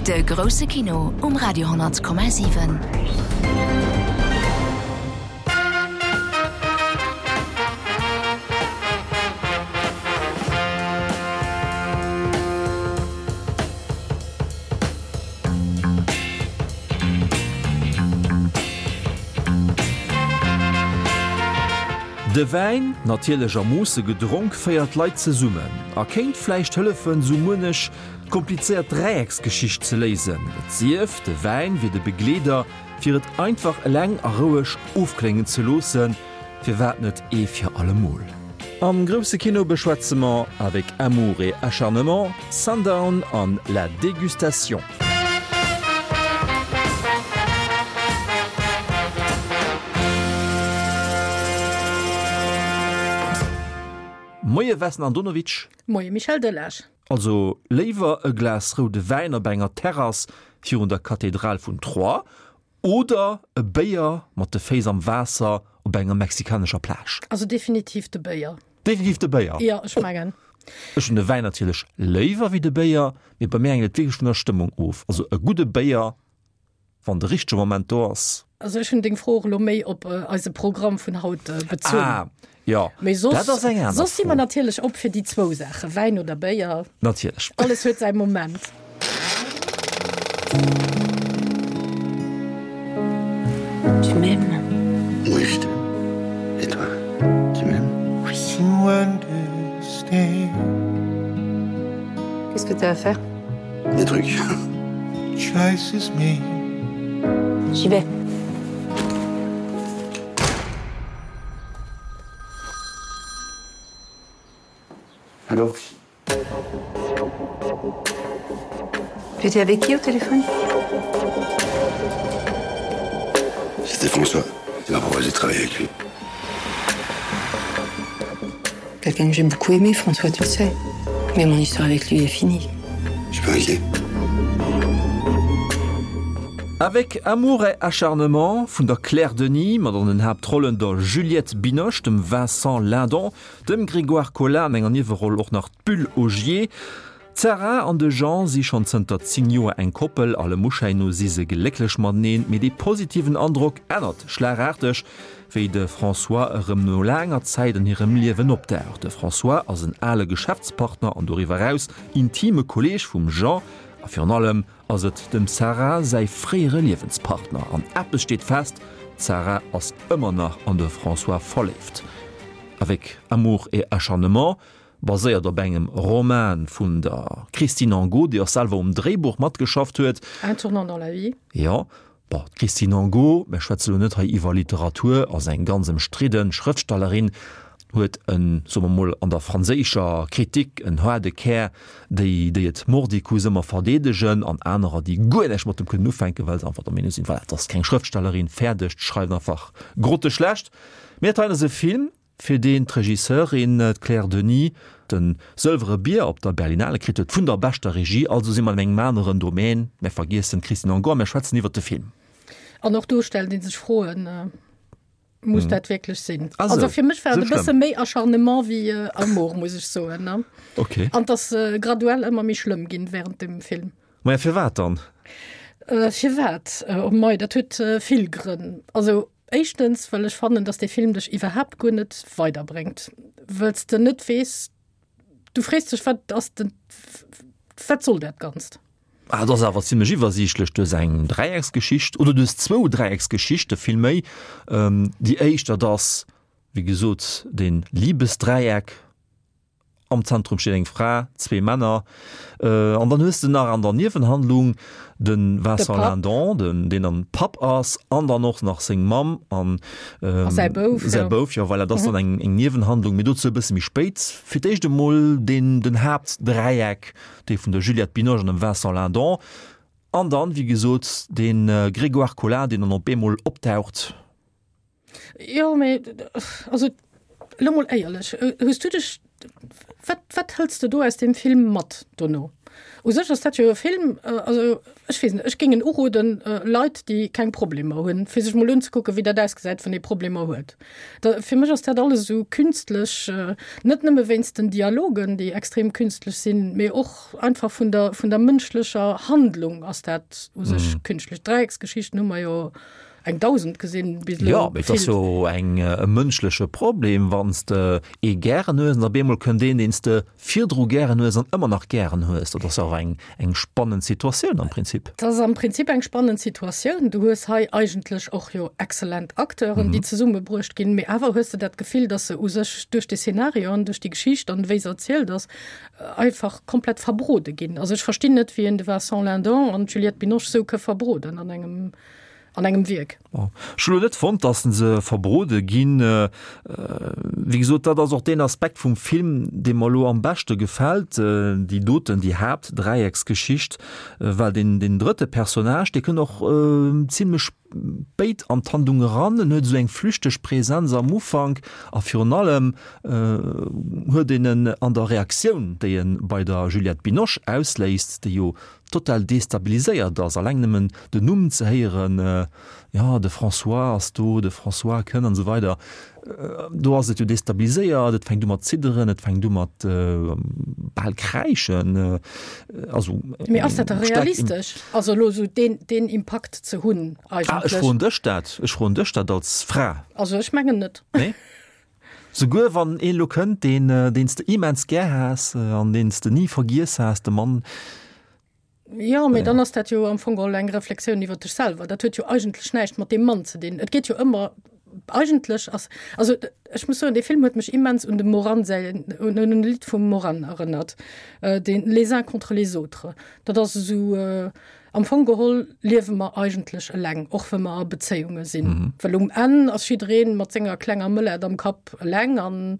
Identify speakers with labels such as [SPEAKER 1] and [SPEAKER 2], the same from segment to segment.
[SPEAKER 1] De grousse Kino um Radio 10,7.
[SPEAKER 2] De Wäin, natierlech a Moosse gedronk, féiert Leit zesummen a kéint vläicht hëllefen, sou muenech komplizéiert Dräiecksgeschicht ze léisen. Et sief, de Wäin wier de Begleeder, fir et einfach eleng a roueg ofkléngen ze loossen. Firwat net ee fir allemol? Am grousse Kino beschwätze mer Avec amour et acharnement, Sundown an La Dégustation. Moie Vesna Andonovic.
[SPEAKER 3] Moie Michel Delage.
[SPEAKER 2] Also léiwer e Glas roude Wäin op enger Terrass virun der Kathedral vun Troyes Oder e Béier mat de Féiss am Waasser op enger mexikanescher Plage.
[SPEAKER 3] Also definitiv de Béier.
[SPEAKER 2] Definitiv de Béier?
[SPEAKER 3] Jo, ech mengen.
[SPEAKER 2] Ech hunn de Wäin natierlech léiwer wéi de Béier, mee bei mir hänkt et wierklech vun der Stëmmung of. Also e gudde Béier, wann de richtege Moment do ass.
[SPEAKER 3] Also ech hunn deng Fro och elo méi op eise Programm vun haut bezunn.
[SPEAKER 2] Ah, jo,
[SPEAKER 3] Mee soss,
[SPEAKER 2] dat ass eng aner
[SPEAKER 3] soss si
[SPEAKER 2] Fro.
[SPEAKER 3] mer natierlech op fir déi zwou Saachen, Wäin oder Béier.
[SPEAKER 2] Natierlech.
[SPEAKER 3] Alles huet säi Moment.
[SPEAKER 4] Tu m'aimes?
[SPEAKER 5] Oui, je t'aime. Et toi, tu m'aimes?
[SPEAKER 4] Oui. Qu'est-ce que t'as à faire?
[SPEAKER 5] Des trucs.
[SPEAKER 4] J'y vais.
[SPEAKER 5] Allô
[SPEAKER 4] Tu étais avec qui au téléphone
[SPEAKER 5] C'était François. Il m'a proposé de travailler avec lui.
[SPEAKER 4] Quelqu'un que j'ai beaucoup aimé, François, tu le sais. Mais mon histoire avec lui est finie.
[SPEAKER 5] Je peux inquiet.
[SPEAKER 2] Avec amour et acharnement vun der Claire Denis, mat an den Haaptrollen der Juliette Binoche, dem Vincent Lindon, dem Grégoire Collin an enger Nieweroll och nach d'Bulle Ogier. D'Sarah an de Jean si schonn zënter 10 Joer eng Koppel, allem Uschäin no si se glécklech mateneen, mee dee positiven Androck ännert schlagaarteg, wéi de François erëm no laanger Zäit an hirem Liewen opdaucht. De François ass en ale Geschäftspartner an doriwwer eraus intime Kolleeg vum Jean a virun allem ass et dem Sarah säi fréiere Liewenspartner. An eppes steet fest, d'Sarah ass ëmmer nach an de François verléift. Avec amour et acharnement Baséiert op engem Roman vun der Christine Angot, déi och selwer um Dréibuch matgeschafft huet.
[SPEAKER 3] Un tournant dans la vie.
[SPEAKER 2] Jo, bon, d'Christine Angot, mir schwätze lo net hei iwwer Literatur, ass eng ganz ëmstridde Schrëftstellerin, huet en, soe mer mol, an der franséischer Kritik en haarde Kär, déi, déi et mordicus ëmmer verdeedegen, an anerer, déi guer näischt mat dem kënnen ufänken, well se einfach der Meenung sinn, voilà, et ass keng Schrëftstellerin, fäerdeg, schreift einfach grotteschlecht. Mee dat hei ass e Film, fir deen d'Regisseurin, d'Claire Denis, de Sëlwere Bier op der Berlinale kritt huet vun der beschter Regie. Also si mer an engem aneren Domaine. Mär vergiessen d'Christine Angot a mär schwätzen iwwert de Film.
[SPEAKER 3] An och do stellt ee sech Froen, Muss dat wierklech sinn?
[SPEAKER 2] Ah
[SPEAKER 3] Also
[SPEAKER 2] sou,
[SPEAKER 3] fir mech war
[SPEAKER 2] sou
[SPEAKER 3] et e bësse
[SPEAKER 2] schlëmm.
[SPEAKER 3] méi Acharnement wéi Amour, muss ech soen.
[SPEAKER 2] Okay.
[SPEAKER 3] An et ass graduell ëmmer méi schlëmm ginn während dem Film.
[SPEAKER 2] Maja, firwat dann?
[SPEAKER 3] Firwat? Oh mei, dat huet vill Grënn. Also Éischtens, well ech fannen, dass dee Film dech iwwerhaapt guer net weiderbréngt, wëll s de net weess, du frees dech, wat ass den, wat soll dat Ganzt?
[SPEAKER 2] Ah, et ass awer zimlech iwwersiichtlech. Du hues eng Dräiecksgeschicht, oder du hues zwou Dräiecksgeschichte villméi. Déi éischt, dat ass, wéi gesot, dee Libesdräieck. Am Zentrum steet eng Fra, zwee Männer. An dann hues de nach an der Niewenhandlung de Vincent Lindon, den, deen dann Papp ass, an dann och nach seng Mamm an
[SPEAKER 3] säi Bouf.
[SPEAKER 2] Säi Bouf, jo, voilà, dat ass dann eng, eng Niewenhandlung, mee dozou e bësse méi spéit. Fir d'éischt emol deen, den Haaptdräieck, dee vun der Juliette Binoche an dem Vincent Lindon. An dann, wéi gesot, de Grégoire Collin, deen dann op eemol optaucht.
[SPEAKER 3] Jo, mee also elo mol éierlech, hues du dech, wat, wat hëls de do aus deem Film mat dono? U sech ass dat jo e Film, also ech weess net, ech géing en uroden Leit, déi keng Problemer hunn, fir sech mol unzekucken, wéi dat ausgesäit, wann ee Problemer huet. Da fir mech ass dat alles esou künstlech, net nëmme wéinst den Dialogen, déi extrem künstlech sinn, mee och einfach vun der, vun der mënschlecher Handlung ass dat u sech künstlech. Dräiecksgeschichten hu mer jo eng 1.000 gesinn bis
[SPEAKER 2] elo. Jo, mee et ass jo eng e mënschleche Problem, wann s de ee gären hues an op eemol kënnt een, deen s de virdru gären hues an ëmmer nach gären hues. Dat ass och eng eng spannend Situatioun am Prinzip.
[SPEAKER 3] Dat ass am Prinzip eng spannend Situatioun. Du hues hei eigentlech och jo exzellent Acteuren, déi zesummebruecht ginn, mee awer hues de dat Gefill, dass se u sech duerch de Szenario an duerch déi Geschicht an wéi se erzielt ass, einfach komplett verbrode ginn. Also ech verstinn net, wéi een de Vincent Lindon an d'Juliette Binoche sou ke verbroden an engem an engem Wierk.
[SPEAKER 2] Ech hu lo net fonnt, dass se verbrode ginn. Wéi gesot, dat ass och deen Aspekt vum Film, dee mer elo am beschte gefält, déi doten, déi Haaptdräiecksgeschicht, well deen, deen drëtte Personnage, dee kënnt och zimlech spéit an d'Handlung eran. En huet esou eng flüchteg Präsenz am Ufank a virun allem huet een en an der Reaktioun, déi e bei der Juliette Binoche ausléist, déi jo total destabiliséiert ass, alleng nëmmen den Numm ze héieren, jo, de François ass do, de François kënn an esou weider, do ass et jo destabiliséiert, et fänkt u mat zidderen, et fänkt u mat bal kräischen, also
[SPEAKER 3] Mee ass dat da realistesch, also elo esou deen, deen Impakt ze hunn
[SPEAKER 2] eigentlech? Ah, ech froen dech dat, ech froen dech dat als Fra.
[SPEAKER 3] Also ech mengen net.
[SPEAKER 2] Nee? Souguer wann een elo kënnt, deen, deen s de immens gär has an deen s de ni vergiess has, de Mann.
[SPEAKER 3] Jo, mee dann ass dat jo am Fong geholl eng Reflexioun iwwer dech selwer. Dat huet jo eigentlech näischt mat deem Mann ze dinn. Et geet jo ëmmer, eigentlech ass, also ech muss soen, dee Film huet mech immens un dem Moran säin, un en Lidd vum Moran erënnert, deen Les uns contre les autres. Dat ass esou, Am Fong geholl liewe mer eigentlech eleng, och wa mer a Bezéiunge sinn. Well um Enn ass jidderee mat senger klenger Mëllert am Kapp eleng. An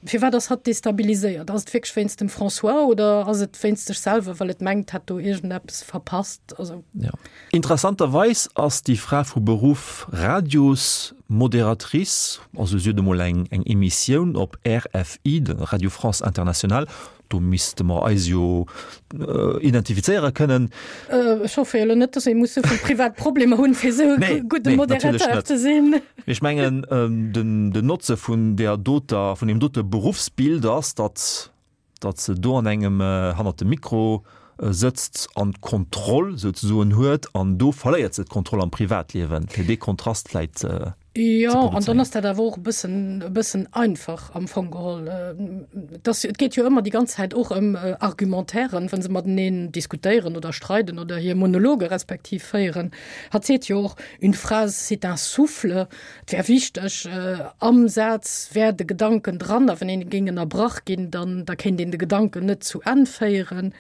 [SPEAKER 3] firwat ass hatt destabiliséiert? Ass et wierklech wéinst dem François oder ass et wéinst sech selwer, well et mengt, hätt do iergendeppes verpasst? Also.
[SPEAKER 2] Jo. Interessanterweis ass déi Fra vu Beruff Radiosmoderatrice, also si huet emol eng Emissioun op RFI, de Radio France Internationale, Do misste mer eis jo identifizéiere kënnen.
[SPEAKER 3] Ech hoffe jo elo net, dass ee muss souvill privat Problemer hunn, fir esou e gudde Moderateur ze sinn.
[SPEAKER 2] Mee ech mengen, den Notze vun där doter, vun deem dote Beruffsbild ass, datt, datt se do an engem, hannert dem Mikro sëtzt an d'Kontroll souzesoen huet, an do verléiert se d'Kontroll am Privatliewen, fir dee Kontrast vläit ze.
[SPEAKER 3] Jo, an dann ass dat awer och e bëssen, e bëssen einfach am Fong geholl. Et ass, et geet jo ëmmer déi ganz Zäit och ëm Argumentairen, wa se mateneen diskutéieren oder streiden oder hir Monologe respektiv féieren. Hatt seet jo och, Une phrase, c'est un souffle. Et wär wichteg, am Saz wär de Gedanken dran, a wann een géing ënnerbrach ginn, dann, da kéint een de Gedanken net zu Enn féieren.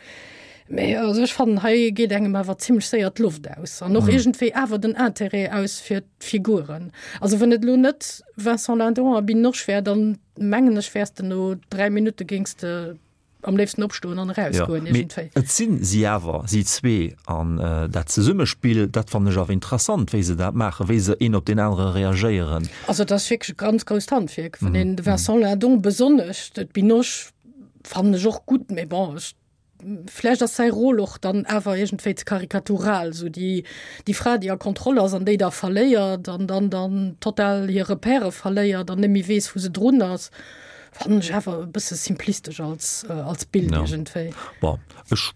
[SPEAKER 3] Mee also ech fannen, hei geet engem awer zimmlech séier d'Loft aus an och iergendwéi awer den Interêt aus fir d'Figuren. Also wann et elo net Vincent Lindon a Binoche wär, dann mengen ech wäers de no 3 Minutte géings de am léifsten opstoen an erausgoen
[SPEAKER 2] iergendwéi. Et sinn si awer, si zwee, an dat Zesummespill, dat fannen ech awer interessant, wéi se dat maachen, wéi se een op deen anere reagéieren.
[SPEAKER 3] Also et ass wierklech e ganz grousst Handwierk, wann een de Vincent Lindon besonnesch, d'Binoche fannen ech och gutt, mee bon, ech Vläicht ass säi Rôle och dann awer iergendwéi ze karikatural, esou déi, déi Fra, déi a Kontroll ass an déi da verléiert an dann dann total hir Repèrë verléiert an net méi weess, wou se drun ass, fannen ech awer e bësse simplistesch als, als Bild iergendwéi.
[SPEAKER 2] Bon, ech,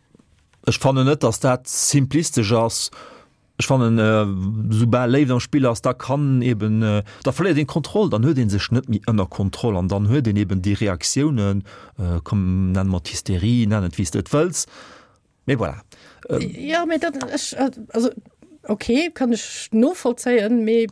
[SPEAKER 2] ech fannen net, datt dat simplistesch ass. Ech fannen, soubal Léift am Spill ass, da kann eben, da verléiert een d'Kontroll, dann huet ee sech net méi ënner Kontroll an dann huet een eben déi Reaktiounen, komm nenn mer et Hysterie, nenn et wéi s de et wëlls, mee voilà.
[SPEAKER 3] Jo, mee dat, ech, also ok, kann ech novollzéien, mee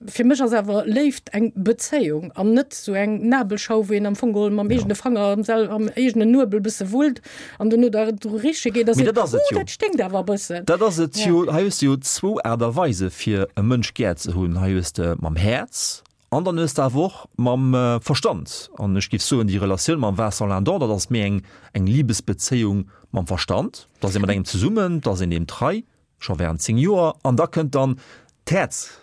[SPEAKER 3] Fir mech ass awer Léift eng Bezéiung an net sou eng Nabelschau, wou een am Fong geholl mam eegene Fanger am sel am eegenen Nuebel bësse wullt an dono da dru riche geet a
[SPEAKER 2] Mee seet, dat ass et
[SPEAKER 3] Uh,
[SPEAKER 2] jo.
[SPEAKER 3] dat sténkt awer e bëssen.
[SPEAKER 2] Dat ass et jo. Hei hues de jo zwou Aart a Weise fir e Mënsch gär ze hunn. Hei hues de mam Häerz an dann hues de awer och mam Verstand. An ech géif soen, déi Relatioun mam Vincent Lindon, dat ass méi eng eng Libesbezéiung mam Verstand. Da ass ee mat engem zesummen, da ass een deem trei, scho während 10 Joer, an da kënnt dann d'Häerz.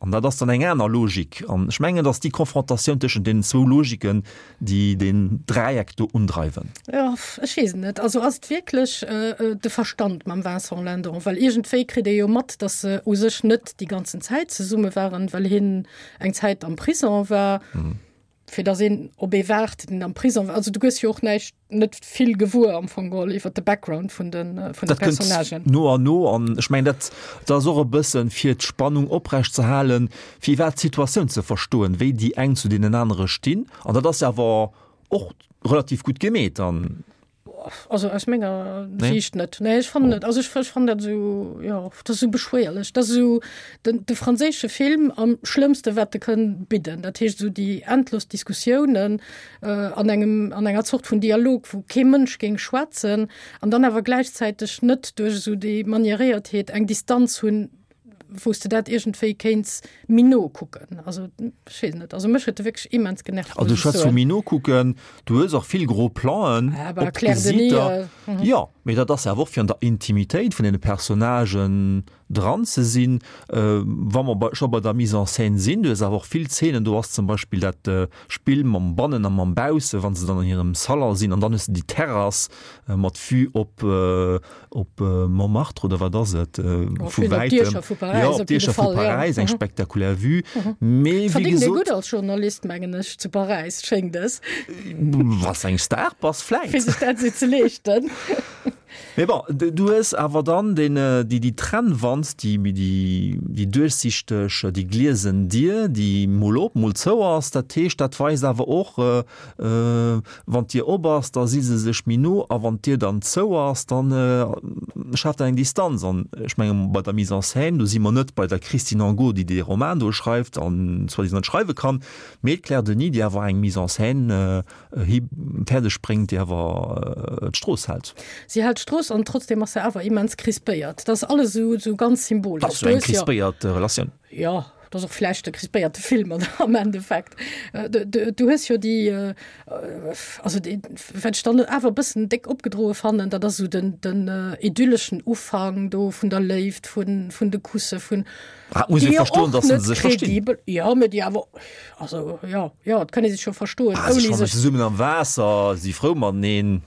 [SPEAKER 2] An dat ass dann eng aner Logik. An ech mengen, dass déi Konfrontatioun tëschent deenen zwou Logiken, déi deen Dräieck do undreiwen.
[SPEAKER 3] Jo, ech weess et net. Also ass et wierklech de Verstand mam Vincent Lindon? Well iergendwéi kritt ee jo mat, dass se u sech net déi ganzen Zäit zesumme waren, well hien eng Zäit am Prison war. Fir dass een op ee waart, deen am Prison war. Also du gëss jo och näischt, net vill gewuer am Fong geholl iwwer de Background vun de vun de Personnagen.
[SPEAKER 2] No an no an ech mengen dat dat ass och e bëssen fir d'Spannung oprecht ze halen, fir iwwerhaapt d'Situatioun ze verstoen, wéi déi eng zu deenen anere stinn. An dat ass jo awer och relativ gutt gemeet an.
[SPEAKER 3] Also aus menger nee. Sicht net. Nee, ech fannen net. Also ech, ech fannen dat esou, jo, dat ass esou beschwéierlech. Dat ass esou den, de franséische Film am schlëmmste wat de kënn bidden. Dat heescht esou déi endlos Diskussiounen äh, an engem, an enger Zort vun Dialog, wou kee Mënsch géing schwätzen an dann awer gläichzäiteg net duerch esou déi Manieréiertheet eng Distanz hunn, wou s de dat iergendwéi kéints méi no kucken. Also ech weess net, also mech huet e wierklech immens genervt.
[SPEAKER 2] Also du schwätz vu méi no kucken, du hues och vill gro Plan'en
[SPEAKER 3] ah,
[SPEAKER 2] op d'Gesiiter. Äh, mhm. Jo, mee dat ass awer och fir an der Intimitéit vun deene Personnagen dran ze sinn. Äh, wa mer bei, scho bei der Mise en scène sinn, du hues awer och vill Zeenen, do ass zum Beispill dat äh, Spill mam Bannen a mam Bausse, wa se dann an hirem Salon sinn an dann hues de déi Terrass äh, mat Vue op äh, op Montmartre oder wat ass et vu wäitem jo op d'Diecher vu Paräis eng spektakulär Vue
[SPEAKER 3] mee wéi gesot gutt als Journalist mengen ech zu Paräis schéngt es
[SPEAKER 2] wann s eng Star bass vläit
[SPEAKER 3] fir sech dat esou ze leeschten.
[SPEAKER 2] Mee bon du hues awer dann deen déi déi Trennwand déi déi déi duerchsichteg déi gliesen Dier déi mol op mol zou ass dat heescht dat weist awer och Wann d'Dier op ass, da si se sech méi no a wann d'Dier dann zou ass, da schaaft dat eng Distanz. An ech menge bei der Mise en scène, do si mer net bei der Christine Angot, déi dee Roman do schreift an soi-disant net schreiwe kann, mee d'Claire Denis, déi awer eng Mise en scène hi fäerdeg bréngt, déi awer d'Strooss hält.
[SPEAKER 3] Si hält d'Strooss an trotzdem ass se awer immens crispéiert. Dat ass alles esou ganz symbolesch.
[SPEAKER 2] Dat ass jo eng crispéiert Relatioun.
[SPEAKER 3] Jo. Dat ass och vläicht e crispéierte Film am Endeffekt. Du hues jo déi, also déi, wat ech dann awer e bëssen déck opgedroe fannen, dat ass esou den, den idylleschen Ufank do vun der Léift, vun, vun de Kusse, vun.
[SPEAKER 2] Ah, muss ee verstoen, datt se sech verstinn.
[SPEAKER 3] Jo, mä déi awer, also jo, jo, et kann ee sech jo verstoen,
[SPEAKER 2] ouni sech. Ah, se schwammen zesummen am Waasser, si frou mateneen.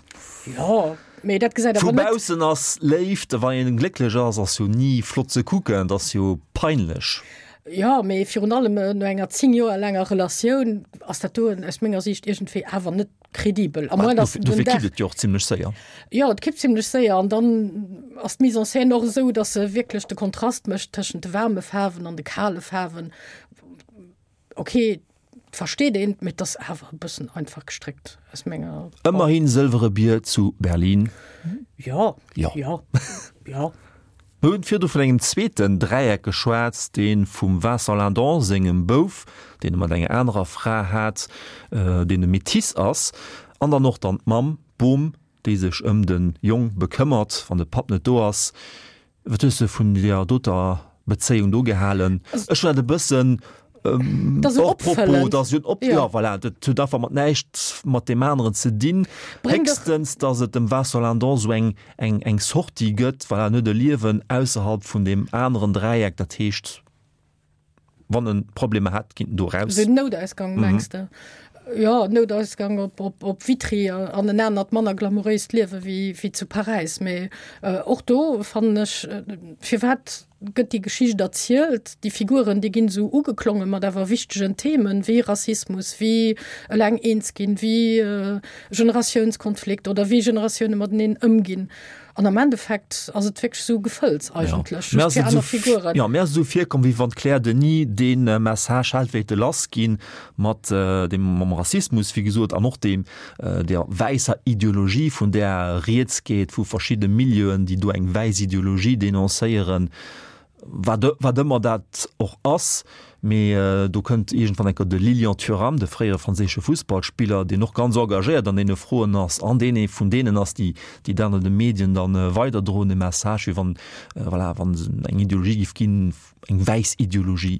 [SPEAKER 3] Jo. Mee dat gesäit
[SPEAKER 2] awer net. Vu baussen ass Léift, wann een glécklech ass, ass jo ni flott ze kucken, et ass jo peinlech.
[SPEAKER 3] Jo, mee virun allem no enger 10 Joer laanger Relatioun ass dat do aus menger Siicht iergendwéi awer net kredibel.
[SPEAKER 2] A moins dass den Dofir kippt et jo och zimlech séier.
[SPEAKER 3] Jo, et kippt zimlech séier an dann ass d'Mise en scène och esou, dass se wierklech de Kontrast mécht tëschent de waarme Faarwen an de kale Faarwen. Ok, et versteet een, mee et ass awer e bëssen einfach gestréckt aus menger.
[SPEAKER 2] Ëmmerhin Sëlwere Bier zu Berlin.
[SPEAKER 3] Jo, jo, jo.
[SPEAKER 2] Mir hunn virdu vun engem zweeten Dräieck geschwat, dee vum Vincent Lindon sengem Bouf, deen e mat enger anerer Fra hat, deen e Métis ass, an dann och dann d'Mamm, d'Bom, déi sech ëm de Jong bekëmmert, wann de Papp net do ass. Wat hues de vun deer doter Bezéiung do gehalen? Ech hunn dat e bëssen
[SPEAKER 3] hors
[SPEAKER 2] propos, dat ass jo en Op, jo voilà, dat huet einfach mat näischt mat deem aneren ze dinn. Héchstens, datt et dem Vincent Lindon esou eng, eng, eng Sortie gëtt, voilà, en huet e Liewen ausserhalb vun deem aneren Dräieck, dat heescht, Wann en Problemer hätt, kinnt en do
[SPEAKER 3] raus. Den Noutausgang mengs de? Jo, Noutausgang op, op, op Vitry an en anert, manner glamouréist Liewe wéi, wéi zu Paräis. Mee och do fannen ech, firwat gëtt déi Geschicht erzielt? Déi Figuren, déi ginn esou ugeklonge mat awer wichtegen Themen, wéi Rassismus, wéi eleng eens ginn, wéi Generatiounskonflikt oder wéi Generatioune mateneen ëmginn. An am Endeffekt ass et wierklech esou Gefëlls eigentlech, just fir aner Figuren.
[SPEAKER 2] Jo, mir ass esou virkomm, wéi wann d'Claire Denis dee Message hält wéilte lassginn, mat deem, mam Rassismus, wéi gesot, an och deem, der wäisser Ideologie, vun där rieds geet, vu verschidde Milieuen, déi do eng wäiss Ideologie denoncéieren, wat, wat ëmmer dat och ass. Mee do kënnt iergendwann eng Kéier de Lilian Thuram, de fréiere franséische Fussballspiller, deen och ganz engagéiert an deene Froen ass an deen ee vun deenen ass, déi déi dat an de Medien dann weiderdroen, de Message, wéi wann, voilà, wann et eng Ideologie géif ginn, eng wäiss Ideologie.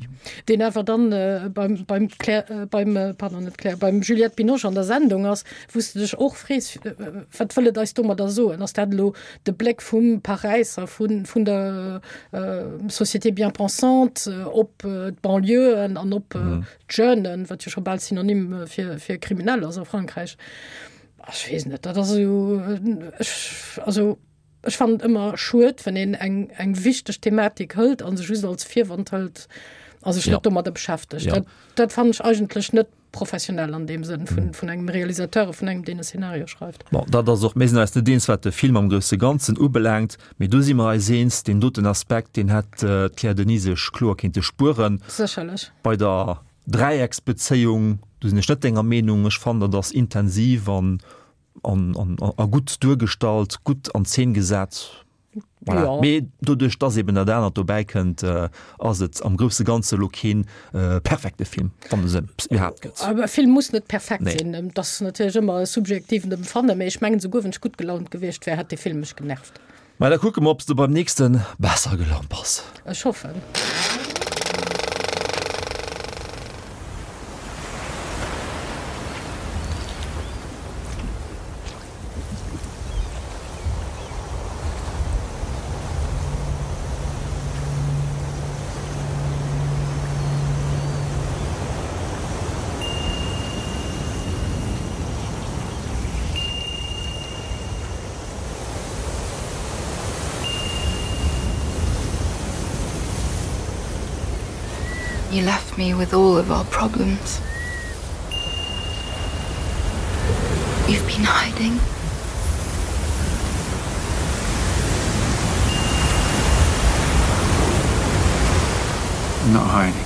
[SPEAKER 3] Deen awer dann beim, beim Claire, beim, pardon, net Claire, beim Juliette Binoche an der Sendung ass, wou s de dech och frees, wat wëll et eis domadder soen? Ass dat elo de Bléck vum Paräisser, vun, vun der Société bien-pensante op d'Banlieuen an op d'Jeunen, wat jo scho bal Synonym fir, fir kriminell ass a Frankräich? Ech weess net, dat ass esou, ech, also ech fannen et ëmmer schued, wann een eng, eng wichteg Thematik hëlt a se just als Virwand hëlt a sech net domadder beschäftegt. Dat, dat fannen ech eigentlech net professionell an deem Sënn vun, vun engem Realisateur a vun engem, deen e Szenario schreift.
[SPEAKER 2] Bon, dat ass och, mir sinn eis net eens, wat de Film am grousse Ganzen ubelaangt, mee do si mer eis eens, deen doten Aspekt, deen hätt d'Claire Denis sech kloer kéinte spueren.
[SPEAKER 3] Sécherlech.
[SPEAKER 2] Bei der Dräiecksbezéiung, do sinn ech net denger Meenung. Ech fannen, dat ass intensiv an, an, an, a gutt duergestallt, gutt an Zeen gesat. Voilà. Ja. Mee doduerch, dass eben dat anert dobäi kënnt, ass et am grousse Ganze lo keen perfekte Film, wann es en iwwerhaapt gëtt.
[SPEAKER 3] Awer e Film muss net perfekt nee. sinn. Dat ass natierlech ëmmer e subjektiven Empfannen, mee ech mengen, souguer wann ech gutt gelaunt gewiescht wär, hätt dee Film mech genervt.
[SPEAKER 2] Mä da kucke mer, ob s de beim nächste besser gelaunt bass.
[SPEAKER 3] Ech hoffen.
[SPEAKER 4] You left me with all of our problems. You've been hiding.
[SPEAKER 6] I'm not hiding.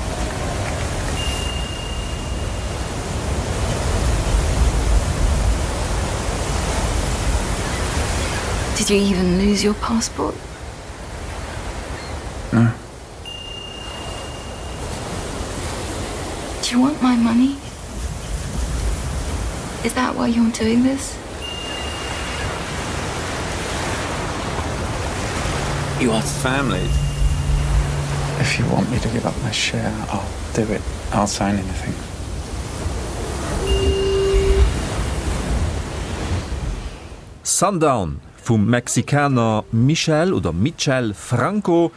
[SPEAKER 4] Did you even lose your passport?
[SPEAKER 6] No.
[SPEAKER 4] Do you want my money? Is that why you're doing this?
[SPEAKER 6] You are family. If you want me to give up my share, I'll do it. I'll sign anything.
[SPEAKER 2] Sundown vum Mexikaner Michel oder Michel Franco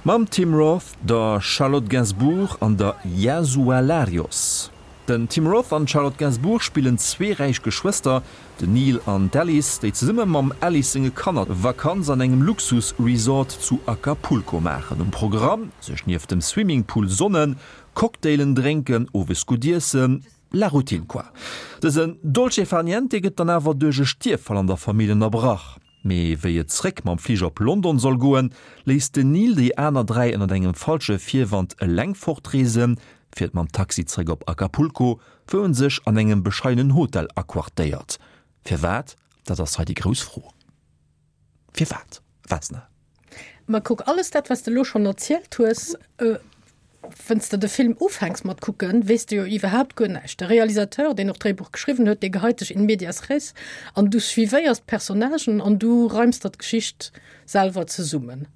[SPEAKER 2] mam Tim Roth, der Charlotte Gainsbourg an der Yasua Larios. Den Tim Roth an d'Charlotte Gainsbourg spillen zwee räich Geschwëster, den Neil an d'Alice, déi zesumme mam Alice senge Kanner Vakanz an engem Luxus-Resort zu Acapulco maachen. Um Programm, sech nieft dem Swimmingpool sonnen, Cocktailen drénken, owes gutt iessen, la routine quoi. Dësen Dolce far niente gëtt dann awer duerch e Stierffall an der Famill ënnerbrach. Mee wéi et zréck mam Fliger op London soll goen, léisst den Neil déi aner 3 ënnert engem falsche Virwand eleng fortreesen, fiert mam Taxi zréck op Acapulco, wou en sech an engem bescheidenen Hotel aquartéiert. Firwat? Dat ass hei déi grouss Fro. Firwat, Vesna?
[SPEAKER 3] Ma kuck, alles dat, wat s de elo schonn erzielt hues, Wenn's de de Film ufänks mat kucken, weess de jo iwwerhaapt guer näischt. De Realisateur, deen och d'Dréibuch geschriwwen huet, dee geheit dech in medias res an du suivéiers d'Personnagen an du reims der d'Geschicht selwer zesummen.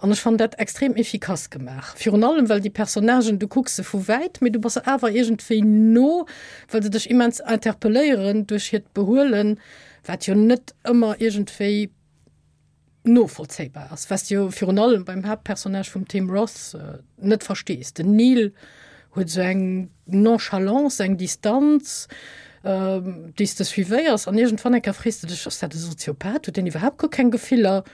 [SPEAKER 3] An ech fannen dat extrem efficace gemaach. Virun allem, well déi Personnagen, du kucks se vu wäit, mee du bass se awer iergendwéi no, well se dech immens interpelléieren duerch hiert Behuelen, wat jo net ëmmer iergendwéi novollzéibar ass, was de jo virun allem beim Haaptpersonnage vum Tim Roth net verstees. Den Neil huet esou eng Nonchalance, eng Distanz, déi s de suivéiers an iergendwann eng Kéier frees de dech, ass dat e Soziopath, huet deen iwwerhaapt guer keng Gefiller?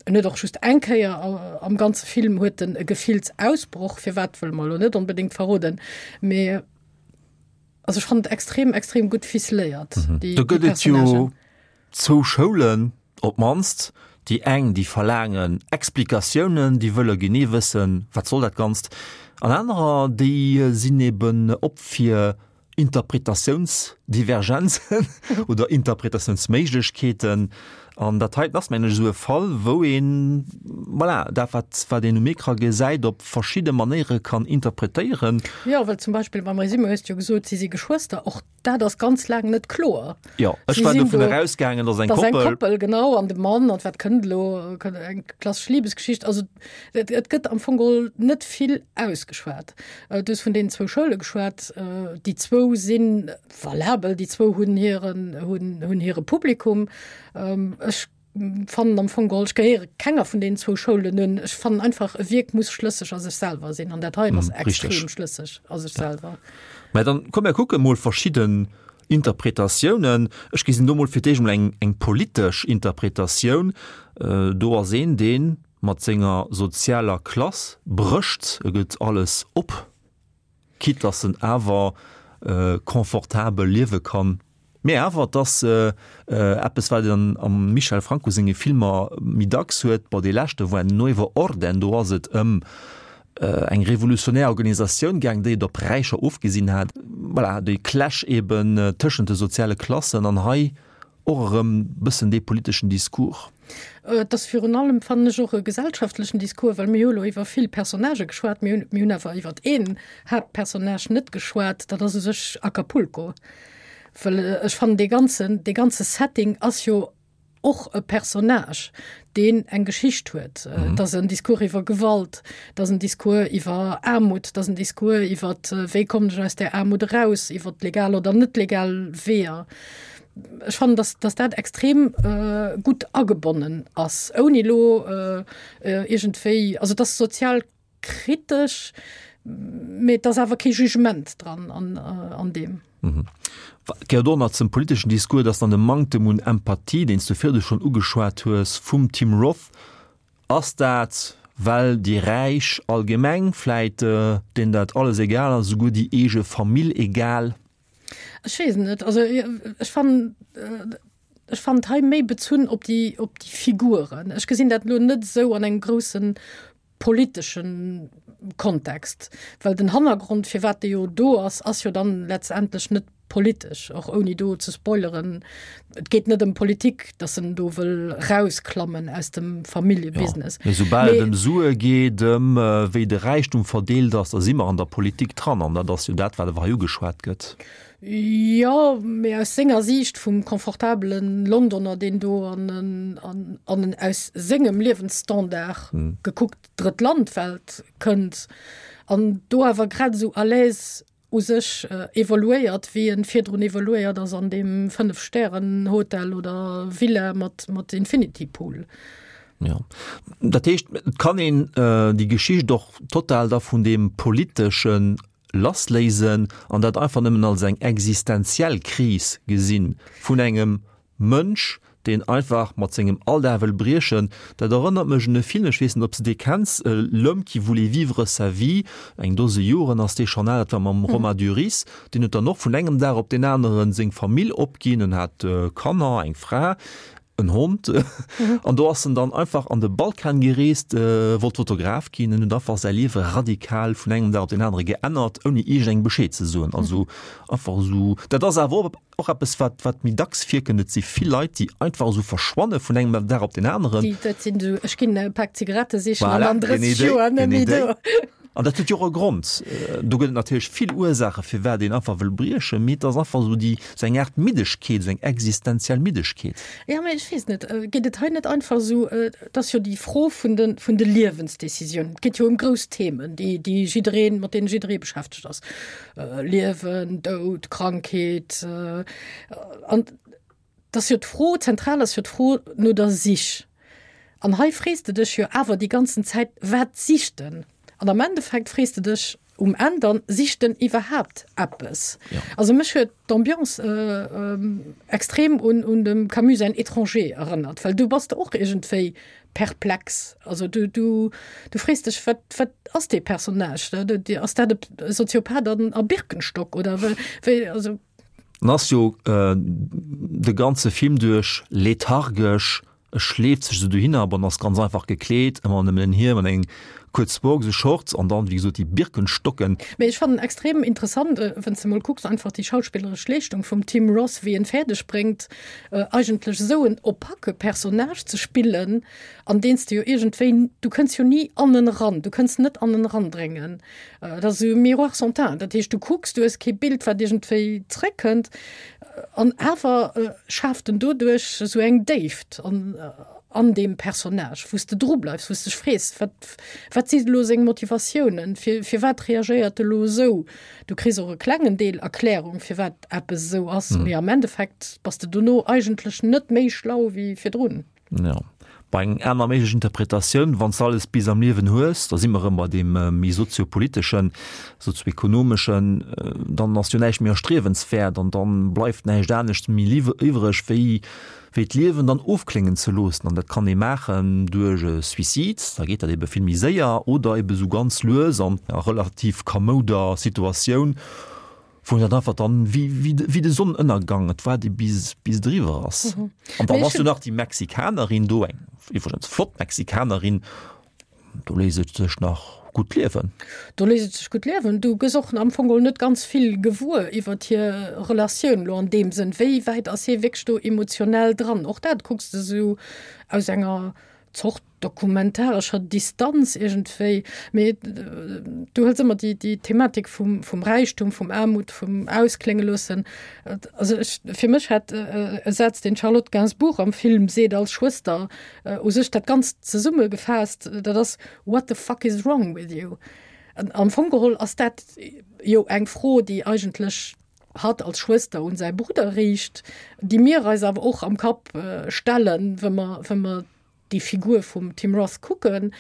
[SPEAKER 3] En huet och just eng Kéier am ganze Film huet en e Gefillsausbroch, firwat wëlle mer elo net onbedéngt verroden, mee also ech fannen et extrem, extrem gutt ficeléiert,
[SPEAKER 2] déi Do gëtt et jo Personnagen. Zwou Schoulen op d'mannst, déi eng, déi verlaangen Explikatiounen, déi wëlle genee wëssen, wat soll dat Ganzt, an anerer, déi sinn eben op fir Interpretatiounsdivergenzen oder Interpretatiounsméiglechkeeten. An dat heiten ass, mengen ech, esou e Fall, wou een, voilà, dat wat, wat een um Ecran gesäit, op verschidde Manéiere kann interpretéieren.
[SPEAKER 3] Jo, well zum Beispill beim Résumé hues de jo gesot, si si Geschwëster. Och dat ass ganz laang net kloer.
[SPEAKER 2] Jo, ech war dovun erausgaangen, dass eng Koppel.
[SPEAKER 3] Dass eng Koppel, genau, an de Mann, an wat kënnt elo, eng klassesch Libesgeschicht. Also et, et gëtt am Fong geholl net vill ausgeschwat. Du hues vun deenen zwou Schoule geschwat. Déi zwou si valabel, déi zwou hunn hiren, hunn, hunn hire Publikum. Ech fannen am Fong geholl, ech gehéiere kenger vun deenen zwou Schoulen un. Ech fannen einfach, e Wierk muss schlësseg a sech selwer sinn an dat heien ass extrem schlësseg a sech selwer.
[SPEAKER 2] Mä dann komm mir kucke mol verschidden Interpretatiounen. Ech gesinn do mol fir d'éischt mol eng, eng politesch Interpretatioun. Do ass een, dee mat senger sozialer Klass brécht, e gëtt alles op. Quitte dass en awer confortabel liewe kann. Mee awer, et ass eppes, wat een am Michel Franco senge Filmer méi dacks huet. Bon, dee leschte war Nuevo Orden, do ass et ëm eng revolutionär Organisatioun gaang, déi et op Räicher ofgesinn hat. Voilà, dee Clash eben tëschent de soziale Klassen. An hei Och erëm bëssen dee politeschen Discours.
[SPEAKER 3] Et ass virun allem, fannen ech, och e gesellschaftlechen Discours, well mir hu elo iwwer vill Personnagë geschwat, mir hunn, mir hunn awer iwwer een Haaptpersonnage net geschwat, dat ass u sech Acapulco. Well ech fannen, dee ganzen, dee ganze Setting ass jo och e Personnage, deen eng Geschicht huet. Et ass en Discours iwwer Gewalt, et ass en Discours iwwer Aarmut, et ass en Discours iwwer, wéi kommen ech aus där Aarmut eraus, iwwer legal oder net legal Weeër. Ech fannen, dass, dass dat extrem äh, gutt agebonnen ass, ouni elo äh, äh, iergendwéi, also et ass sozial kritesch, mee et ass awer kee Jugement dran an, äh, an deem.
[SPEAKER 2] Mhm. Gehéiert och nach zum politeschen Discours, dass dann de Manktem un Empathie, deen s du virdu schonn ugeschwat hues, vum Tim Roth, ass dat, well déi Räich allgemeng vläit, deenen dat alles egal ass, esouguer déi eege Famill egal?
[SPEAKER 3] Ech weess et net. Also ech fannen, ech fannen et hei méi bezunn op déi, op déi Figuren. Ech gesinn dat elo net esou an engem grousse politesche Kontext, well den Hannergrond, firwat dee jo do ass, ass jo dann letztendlech net politesch, och ouni do ze spoileren. Et geet net ëm Politik, datt en do wëll rausklammen aus dem Familljebusiness.
[SPEAKER 2] Mee soubal et ëm Sue geet, ëm wéi de Räichtum verdeelt ass, da si mer an der Politik dran. An dat ass jo dat, wat awer hei ugeschwat gëtt.
[SPEAKER 3] Jo, mee aus senger Siicht vum confortabele Londoner, deen do an en, an en aus sengem Liewensstandard gekuckt drëtt Land-Welt kënnt an do awer grad esou à l'aise u sech evoluéiert, wéi en virdrun evoluéiert ass an deem Fënnef-Stären-Hotel oder Villa mat, mat Infinity Pool.
[SPEAKER 2] Jo. Dat heescht, et kann een déi Geschicht och total da vun deem Politesche lassléisen an dat einfach nëmmen als eng existenziell Kris gesinn vun engem Mënsch, deen einfach mat sengem Alldag wëll briechen. Dat erënnert mech un e Film, ech weess net, ob s de dee kenns, L'homme qui voulait vivre sa vie, eng Dose Joren ass dee schonn al, dat war mam Romain Duris. Deen huet dann och vun engem Dag op deen aneren seng Famill opginn, en hat Kanner, eng Fra, en Hond, an do ass en dann einfach an de Balkan gereest, wollt Fotograf ginn en huet einfach säi Liewe radikal vun engem Dag op deen anere geännert, ouni iergendengem Bescheed ze soen. Also einfach esou, dat ass awer och eppes, wat, wat méi dacks virkënnt. Et si vill Leit, déi einfach esou verschwanne vun engem Dag op deen aneren.
[SPEAKER 3] Déi, dat sinn esou, ech ginn e Pak Zigarette sichen an dann 30 Joer net méi do.
[SPEAKER 2] An dat huet jo och e Grond. Do gëtt et natierlech vill Ursaache firwat een einfach wëll briechen, mee et ass einfach esou déi, esou eng Aart Middegkeet, esou eng existenziell Middegkeet.
[SPEAKER 3] Jo, mee ech weess net, geet et hei net einfach esou, et ass jo déi Fro vun de, vun de Liewensdecisiounen. Et geet jo ëm grouss Themen, déi, déi jiddereen, mat deene jidderee beschäftegt ass, Liewen, Doud, Krankheet. An Et ass jo d'Fro, zentral ass jo d'Fro no der Sich. An hei frees de dech jo awer déi ganzen Zäit, wat sicht en? An am Endeffekt frees de dech um Enn dann, sicht en iwwerhaapt eppes? Also mech huet d'Ambiance extrem un un dem Camus säin Étranger erënnert, well du bass de och iergendwéi perplex. Also du du du frees dech, wat wat ass dee Personnage? Ass dat e Soziopath an a Birkenstock oder wéi also?
[SPEAKER 2] En ass jo de ganze Film duerch lethargesch. E schleeft sech esou dohinner, bon, ass ganz einfach gekleet, ëmmer nëmmen en Hiem an eng kuerz Boxershorts an dann, wéi gesot, déi Birkenstocken.
[SPEAKER 3] Mee ech fannen extrem interessant, wann s de mol kucks, einfach déi schauspilleresch Leeschtung vum Tim Roth, wéi en fäerdeg bréngt, eigentlech esou en opake Personnage ze spillen, an deen s de jo iergendwéi, du kënns jo ni an en eran, du kënns net an en erandréngen. Dat ass esou e Miroir sans teint, dat heescht, du kucks, du hues kee Bild, wat iergendwéi zréckkënnt. An awer schaaft en doduerch esou eng Déift an an deem Personnage, wou s de dru bleifs, wou s dech frees, wat wat si elo seng Motivatiounen, fir firwat reagéiert e lo esou? Du kriss och e klengen Deel Erklärung, firwat eppes esou ass, mee am Endeffekt bass de dono eigentlech net méi schlau wéi virdrun.
[SPEAKER 2] Jo, bei eng aner méiglech Interpretatioun, wann s de alles bis am Liewen hues, da si mer erëm bei deem méi soziopoliteschen, sozioekonomeschen, dann ass jo näischt méi erstriewenswäert an dann bleift näischt anescht méi iwwreg, wéi wéi d'Liewen dann ofkléngen ze loossen. An dat kann ee maachen duerch e Suicide, da geet dat ebe vill méi séier, oder ebe sou ganz lues an enger relativ kamouder Situatioun. Wou dat einfach dann wéi, wéi, wéi de Sonnenënnergang, et waart ee bis, bis et eriwwer ass. Mhm. An dann ass jo nach déi Mexikanerin do, eng iwwregens flott Mexikanerin, do léisst et sech nach gutt liewen.
[SPEAKER 3] Do léisst et sech gutt liewen. Du gëss och am Fong geholl net ganz vill gewuer iwwert hir Relatioun elo an deem Sënn. Wéi wäit ass hie wierklech do emotionell dran? Och dat kucks de sou aus enger Zort dokumentarescher Distanz iergendwéi, mee du hëls ëmmer déi, déi Thematik vum, vum Räichtum, vum Aarmut, vum Ausklénge loossen. Also ech, fir mech hat e Saz, deen d'Charlotte Gainsbourg am Film seet als Schwëster, u sech dat Ganzt zesummegefaasst, dat ass, What the fuck is wrong with you? An am Fong geholl ass dat jo eng Fro, déi eigentlech hatt als Schwëster un säi Brudder riicht, déi mir eis awer och am Kapp stellen, wa mer, wa mer déi Figur vum Tim Roth kucken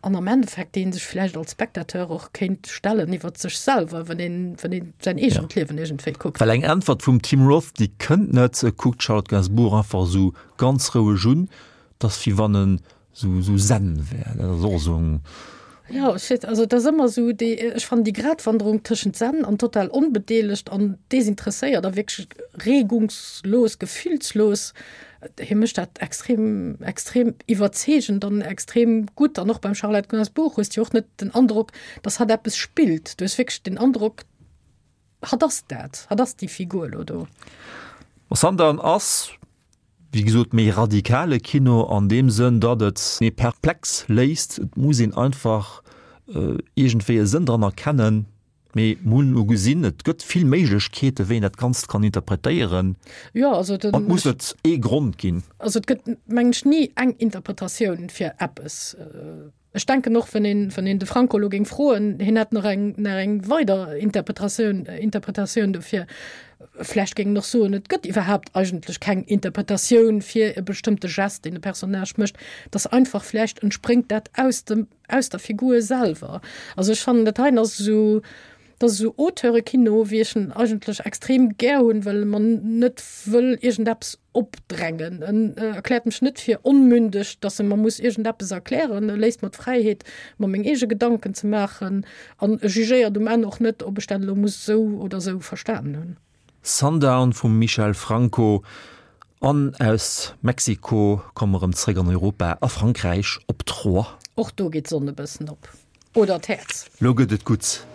[SPEAKER 3] an am Endeffekt dee sech vläicht als Spectateur och kéint stellen iwwer sech selwer, wann een, wann een säin eegent Liewen iergendwéi kuckt.
[SPEAKER 2] Well eng Äntwert vum Tim Roth, déi kënnt net. E kuckt d'Charlotte Gainsbourg einfach esou ganz roueg un, 't ass wéi wann en sou, sou zen wär. Dat ass och esou eng.
[SPEAKER 3] Jo, ech weess, also et ass ëmmer esou déi, ech fannen déi Gratwanderung tëschent zen an total onbedeelegt an desinteresséiert a wierklech regungslos, gefillslos, hie mécht dat extrem, extrem iwwerzeegend an extrem gutt. An och beim Charlotte Gainsbourg hues de jo och net den Androck, datt hatt eppes spillt. Du hues wierklech den Androck, hatt ass dat, hatt ass déi Figur elo do.
[SPEAKER 2] Sundown ass Wéi gesot, méi radikale Kino an deem Sënn, datt et ee perplex léisst. Et muss een einfach iergendwéi e Sënn dran erkennen. Mee mir hunn elo gesinn, et gëtt vill Méiglechkeeten, wéi een dat Ganzt kann interpretéieren.
[SPEAKER 3] Jo, also den.
[SPEAKER 2] An et muss net ee Grond ginn.
[SPEAKER 3] Also et gëtt, mengen ech, ni eng Interpretatioun fir eppes. Ech denken och, wann een, wann een de Franco elo géing froen, hien hätt nach eng, nach eng weider Interpretatioun, Interpretatioun dofir. Vlächtt géing en och soen, et gëtt iwwerhaapt eigentlech keng Interpretatioun fir e bestëmmte Gest, deen e Personnage mécht, dass einfach vlächtt entspréngt dat aus dem, aus der Figur selwer. Also ech fannen, dat heien ass esou, Dat ass esou Auteurekino, wéi ech en eigentlech extrem gär hunn, well e mer net wëll iergendeppes opdrängen. En erkläert mech net fir onmündeg, dass e mer muss iergendeppes erklären. E léisst mer d'Fräiheet, mer meng eege Gedanken ze maachen an e jugéiert um Enn och net, ob ech dat elo muss esou oder esou verstanen hunn.
[SPEAKER 2] Sundown vum Michel Franco an aus Mexiko komme mer erëm zréck an Europa, a Frankräich, op Troyes.
[SPEAKER 3] Och do geet d'Sonn e bëssen op. Oder d'Häerz.
[SPEAKER 2] Lo gëtt et gutt.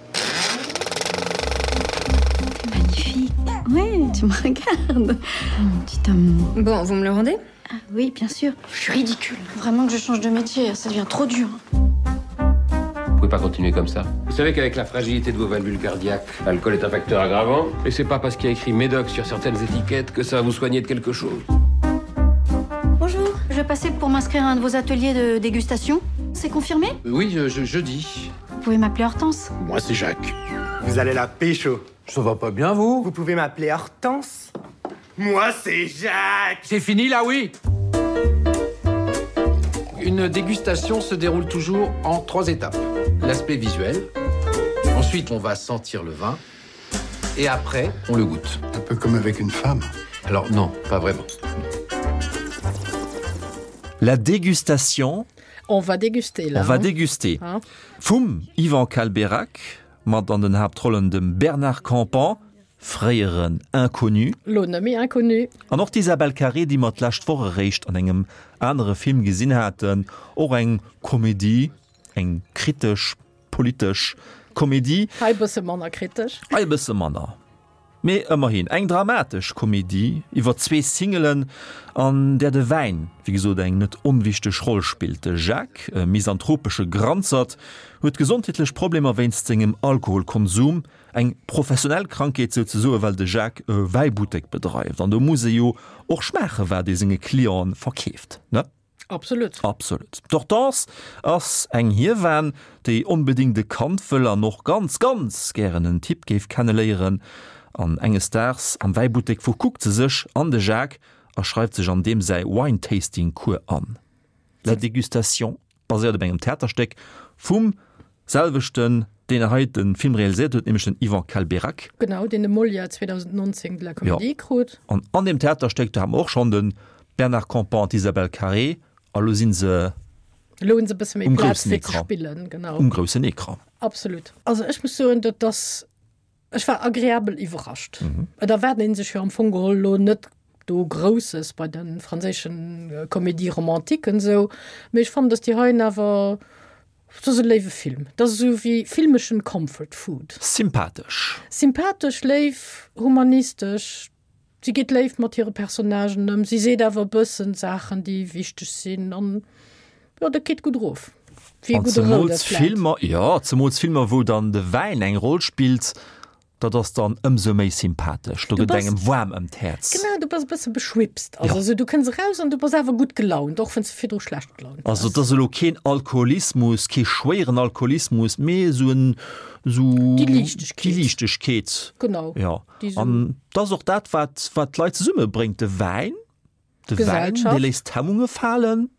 [SPEAKER 4] Magnifique. Oui, tu me regardes. Mon petit amour.
[SPEAKER 7] Bon, vous me le rendez
[SPEAKER 4] Ah oui, bien sûr. Je suis ridicule. Vraiment que je change de métier, ça devient trop dur.
[SPEAKER 8] Vous pouvez pas continuer comme ça. Vous savez qu'avec la fragilité de vos valvules cardiaques, l'alcool est un facteur aggravant. Et c'est pas parce qu'il y a écrit Médoc sur certaines étiquettes que ça va vous soigner de quelque chose.
[SPEAKER 4] Bonjour, je vais passer pour m'inscrire à un de vos ateliers de dégustation. C'est confirmé
[SPEAKER 8] Oui, je, je, jeudi.
[SPEAKER 4] Vous pouvez m'appeler Hortense.
[SPEAKER 5] Moi, c'est Jacques.
[SPEAKER 9] Vous allez la pécho.
[SPEAKER 10] Ça va pas bien, vous
[SPEAKER 9] Vous pouvez m'appeler Hortense. Moi, c'est Jacques.
[SPEAKER 10] C'est fini, là, oui Une dégustation se déroule toujours en trois étapes. L'aspect visuel. Ensuite, on va sentir le vin. Et après, on le goûte.
[SPEAKER 5] Un peu comme avec une femme.
[SPEAKER 8] Alors non, pas vraiment.
[SPEAKER 2] La dégustation.
[SPEAKER 3] On va déguster là.
[SPEAKER 2] On va déguster. Vum Yvan Calbérac, mat an den Haaptrollen dem Bernard Campan. fréieren Inconnu.
[SPEAKER 3] Lo net méi Inconnu.
[SPEAKER 2] An och d'Isabelle Carré, déi mer d'lescht Woch eréischt an engem anere Film gesinn haten, och eng Komedie, eng kritesch, politesch Komedie.
[SPEAKER 3] Hei e bësse manner kritesch.
[SPEAKER 2] Hei e bësse manner, mee ëmmerhin eng dramatesch Komedie iwwer zwee Singelen, an där de Wäin, wéi gesot, eng net onwichteg Roll spillt. De Jacques, e misanthropesche Granzert, huet gesondheetlech Problemer wéinst sengem Alkoholkonsum, Eng professionell Krankheet souzesoe well de Jacques e Wäibuttek bedreift an do muss e jo och schmaache wat ee senge Clienten verkeeft, ne?
[SPEAKER 3] Absolut.
[SPEAKER 2] Absolut. D'Hortense ass eng Hiewan, déi onbedéngt e Kand wëll an och ganz, ganz gären en Typ géif kenneléieren. An enges Daags am Wäibuttek verkuckt se sech an de Jacques a schreift sech an deem säi Wine-Tasting-Cours an. La dégustation. Baséiert op engem Theaterstéck vum selwechten, deen hei de Film realiséiert huet, nämlech den Yvan Calbérac.
[SPEAKER 3] Genau, deen de Molière 2019 de la Comédie krut.
[SPEAKER 2] An an deem Theaterstéck, do hate mer och schonn de Bernard Campan an d'Isabelle Carré, a lo si se
[SPEAKER 3] Elo hunn se e bësse méi Plaz fir ze spillen, genau.
[SPEAKER 2] Um groussen Ecran.
[SPEAKER 3] Absolut. Also ech muss soen, dat ass Ech war agreabel iwwerrascht. Et erwaart een sech jo am Fong geholl lo net do Grousses bei de franséischen Comédie-romantiquen esou, mee ech fannen, dass déi heien awer, dat ass e léiwe Film. Dat ass esou wéi filmeschen Comfort Food.
[SPEAKER 2] Sympathesch.
[SPEAKER 3] Sympathesch, léif, humanistesch. Si geet léif mat hire Personnagen ëm, si seet awer e bëssen Saachen, déi wichteg sinn an jo, dat geet gutt erof.
[SPEAKER 2] Wéi e gudde roude Fläit. Filmer, jo, zemools Filmer, wou dann de Wäin eng Roll spillt, dat ass dann ëmsou méi sympathesch. Do gëtt engem waarm ëm d'Häerz.
[SPEAKER 3] Genau, du bass e bësse beschwipst. Also esou, du kënns eraus an du bass awer gutt gelaunt, och wann s de virdru schlecht gelaunt
[SPEAKER 2] waars. Also et ass elo keen Alkoholismus, kee schwéieren Alkoholismus, mee esou en, esou.
[SPEAKER 3] Déi Liichtegkeet.
[SPEAKER 2] Déi Liichtegkeet.
[SPEAKER 3] Genau.
[SPEAKER 2] Jo. An dat ass och dat, wat, wat d'Leit zesummebréngt, de Wäin. De Wäin, dee léisst d'Hemmunge falen.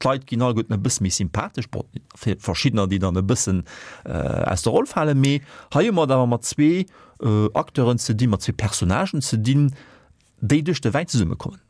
[SPEAKER 2] D'Leit ginn alleguerten e bësse méi sympathesch, bon, fir verschiddener, déi dann e bëssen aus der Roll falen. Mee hei hu mer et awer mat zwee Acteuren ze dinn, mat zwee Personnagen ze dinn, déi duerch de Wäin zesummekommen.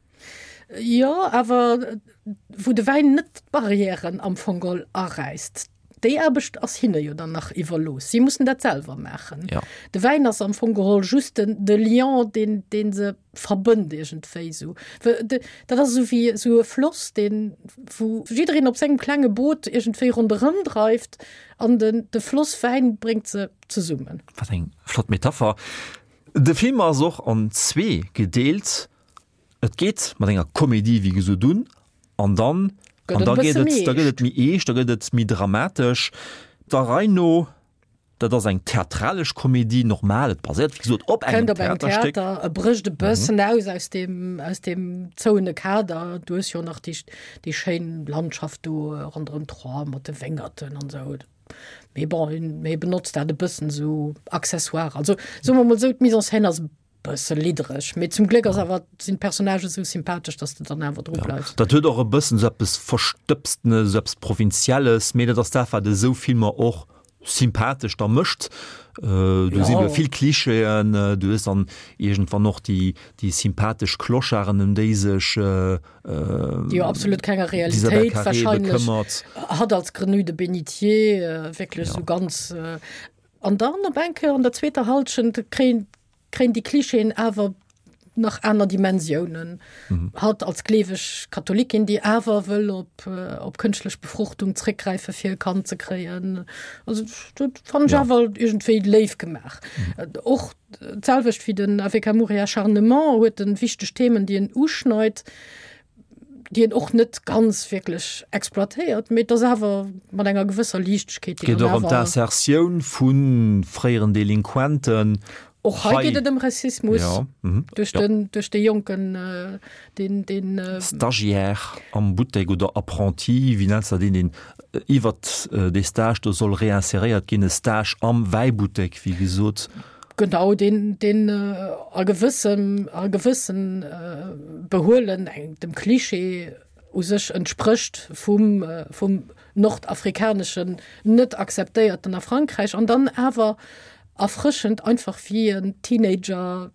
[SPEAKER 3] Jo, awer wou de Wäin net d'Barrièren am Fong geholl aräisst. Déi Aarbecht ass hinne jo dann nach iwwerlooss. Si mussen dat selwer maachen.
[SPEAKER 2] Ja.
[SPEAKER 3] De Wäin ass am Fong geholl just den, de Lien, deen, deen se verbënnt iergendwéi esou. Dat ass esou wéi esou e Floss, deen, wou jiddereen op sengem klenge Boot iergendwéi ronderëm dreift an den, de Floss Wäin bréngt se zesummen.
[SPEAKER 2] Wat eng flott Metapher. De Film ass och an zwee gedeelt. Et geet mat enger Komedie wéi gesot un an dann an da geet et da gëtt et méi eescht, da gëtt et méi dramatesch. Der Rei no, dat ass eng theatralesch Komedie, normal, et baséiert wéi gesot op engem
[SPEAKER 3] Theaterstéck. E brécht e bëssen aus aus deem aus deem zouene Kader. Du hues jo nach déi déi schéin Landschaft do ronderëm Troyes mat de Wéngerten an esou. Mee bon, hie benotzt dat e bëssen esou accessoire. Also soe mer mol esou, d'Mise en scène ass e Bësse liddereg, mee zum Gléck ass awer sinn d'Personnagë sou sympathesch, dass de dann awer dru bleifs.
[SPEAKER 2] Dat huet och e bëssen sou eppes Verstëbstenes, sou eppes Provinzielles, mee dat ass dat, wat esou Filmer och sympathesch da mécht. Do si vill Klischeeën, du hues dann iergendwann och déi, déi sympathesch Clocharden, ëm déi sech
[SPEAKER 3] Déi jo absolut kenger Realitéit wahrscheinlech hatt als Grenouille de bénitier wierklech sou ganz. An dann op eng Kéier an der zweeter Hallschent kréien kréien déi Klischeeën awer nach aner Dimensiounen. Mhm. Hatt als gleeweg Katholikin, déi awer wëll op, äh, op kënschtlech Befruchtung zréckgräife fir e Kand ze kréien. Also dat fand ech ja. awer iergendwéi léif gemaach. Mhm. Äh, och d'selwecht wéi den Avec amour et acharnement huet en wichteg Themen, déi en uschneit. déi en och net ganz wierklech exploitéiert, mee et ass awer mat enger gewësser Liichtegkeet.
[SPEAKER 2] Et geet och ëm d'Insertioun vu fréieren Delinquenten.
[SPEAKER 3] Och hei geet et ëm Rassismus duerch den, duerch dee Jonken, deen, deen.
[SPEAKER 2] Stagiaire am Buttek oder Apprenti, wéi nenns de dat, deen, deen iwwert dee Stage do soll réinseréiert ginn, e Stage am Wäibuttek, wéi gesot.
[SPEAKER 3] Genau, deen, deen a gewëssem, a gewëssen Behuelen eng, dem Klischee u sech entsprécht vum, vum nordafrikaneschen net akzeptéierten a Frankräich an dann awer erfrëschend einfach wéi en Teenager.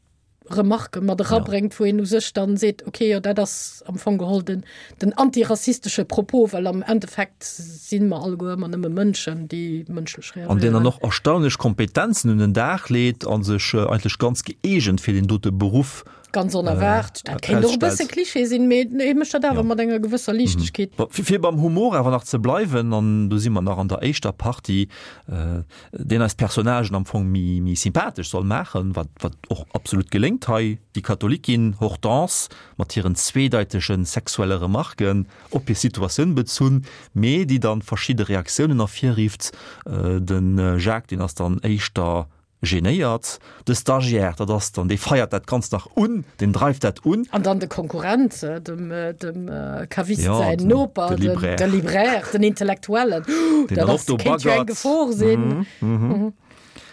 [SPEAKER 3] Remarquë mat erabréngt, wou een u sech dann seet, okay, jo dat ass am Fong geholl den, den antirassistesche Propos, well am Endeffekt si mer alleguer ëmmer nëmme Mënschen, déi mënschlech
[SPEAKER 2] reagéieren. An deen dann och erstaunlech Kompetenzen un den Dag leet a sech eigentlech ganz gëeegent fir deen dote Beruff
[SPEAKER 3] Ganz onerwaart. Dat kéint och e bësse Klischee sinn, mee hie mécht dat awer mat enger gewësser Liichtegkeet.
[SPEAKER 2] Fir beim Humor awer nach ze bleiwen, an do si mer nach an der éischter Partie, deen eis Personnagen am Fong méi, méi sympathesch soll maachen, wat, wat och absolut geléngt hei, déi Katholikin Hortense mat hiren zweedeitege sexuelle Remarken op hir Situatioun bezunn, mee déi dann verschidde Reaktiounen ervirrifft. De Jacques, deen ass dann éischter Genéiert. De Stagiaire, dat ass dann, dee feiert dat Ganzt nach un, deen dreift dat un.
[SPEAKER 3] An dann de Konkurrent, dem, dem Caviste säin Noper, de Libraire, de Libraire, den Intellektuellen,
[SPEAKER 2] deen dann och do
[SPEAKER 3] baggert. Kéint jo eng Gefor sinn.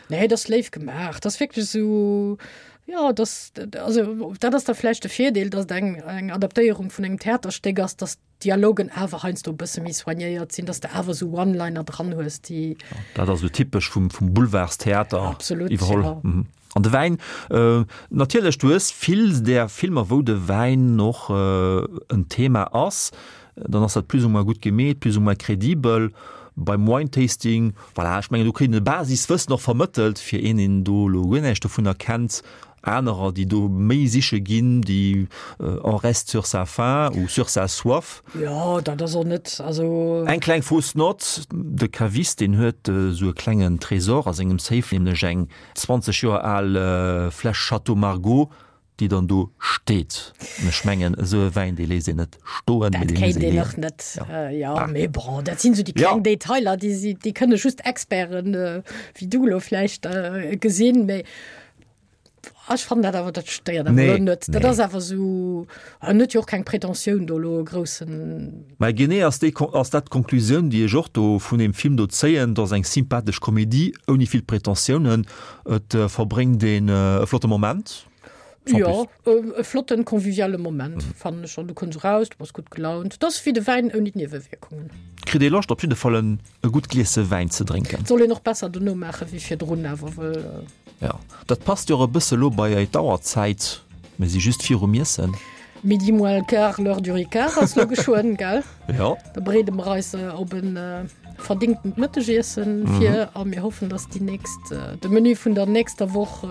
[SPEAKER 3] Nee, dat ass léif gemaach. Dat ass wierklech esou, jo, dat, also dat ass da vläicht de Virdeel, datt et eng, eng Adaptéierung vun engem Theaterstéck ass, datt Dialogen awer heiansdo e bësse méi soignéiert sinn, dass de awer esou One-Liner dran hues, déi.
[SPEAKER 2] Dat ass esou typesch vum, vum Boulevardstheater
[SPEAKER 3] Absolut,
[SPEAKER 2] iwwerholl.
[SPEAKER 3] ja.
[SPEAKER 2] Mhm. An de Wäin, natierlech, du hues vill där Filmer, wou de Wäin och en Thema ass, dann ass dat plus ou moins gutt gemeet, plus ou moins credibel. Beim Wine Tasting, voilà, ech mengen, do kritt een e Basiswëssen och vermëttelt, fir een, deen do elo guer näischt dovunner kennt, Anerer, déi do méi siche ginn, déi on reste sur sa faim ou sur sa soif.
[SPEAKER 3] Jo, dat ass och net, also.
[SPEAKER 2] Eng kleng fausse note, De Caviste, deen huet esou e klengen Tresor a sengem Safe, nämlech eng 20 Joer al Fläsch Château Margaux, déi dann do steet. An ech mengen, esou e Wäin, dee léisst een net stoen,
[SPEAKER 3] mee dee muss ee leeën. Dat kéint een och net, jo. Mee bon, dat sinn esou déi kleng Detailer, déi, déi kënne just Experten, wéi du elo vläicht, gesinn. Mee Ech fannen dat awer, dat stéiert awer elo net. Dat ass awer esou, en huet jo och keng Pretentioun do elo e groussen.
[SPEAKER 2] Mä genee ass déi, ass dat d'Konklusioun, déi ech och do vun deem Film do zéien. Et ass eng sympathesch Komedie ouni vill Pretentiounen. Et verbréngt een e flotte Moment,
[SPEAKER 3] sans plus. Jo, e flotten, conviviale Moment, fannen ech schon. Du kënns eraus, du bass gutt gelaunt. Et ass wéi de Wäin ouni d'Niewewierkungen.
[SPEAKER 2] Kritt ee Loscht op jidde Fall en e gutt Gliesse Wäin ze drénken.
[SPEAKER 3] Soll een och besser dono maache wéi virdrun awer, wëll.
[SPEAKER 2] Jo, dat passt jo och e bësse lo bei ei d'Auerzäit, mir si just virum Iessen.
[SPEAKER 3] Midi moins le quart, l'heure du Ricard ass lo geschwënn, gell?
[SPEAKER 2] Jo.
[SPEAKER 3] Da bereede mer eis op e verdingtent Mëttegiessen vir a mir hoffen, dass déi nächst, de Menü vun der nächster Woch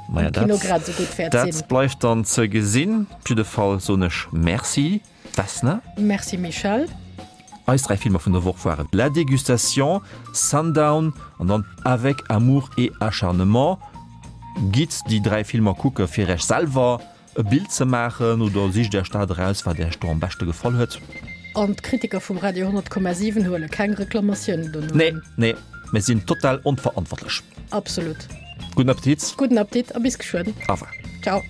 [SPEAKER 2] Maja,
[SPEAKER 3] am Kino grad esou gutt wäert sinn.
[SPEAKER 2] Dat bleift dann ze gesinn. Op jidde Fall soen ech Merci. Vesna.
[SPEAKER 3] Merci Michèle.
[SPEAKER 2] Eis 3 Filmer vun der Woch waren La Dégustation, Sundown an dann Avec amour et acharnement. Gitt déi 3 Filmer kucke fir Iech selwer e Bild ze maachen oder sicht Iech dat eraus wat Iech do am beschte gefall huet.
[SPEAKER 3] An d'Kritiker vum Radio 100,7 huele keng Reklamatiounen dono
[SPEAKER 2] Nee, un. nee, mir sinn total onverantwortlech.
[SPEAKER 3] Absolut.
[SPEAKER 2] Gudden Appetit.
[SPEAKER 3] Gudden Appetit a bis geschwënn.
[SPEAKER 2] Au revoir.
[SPEAKER 3] Ciao.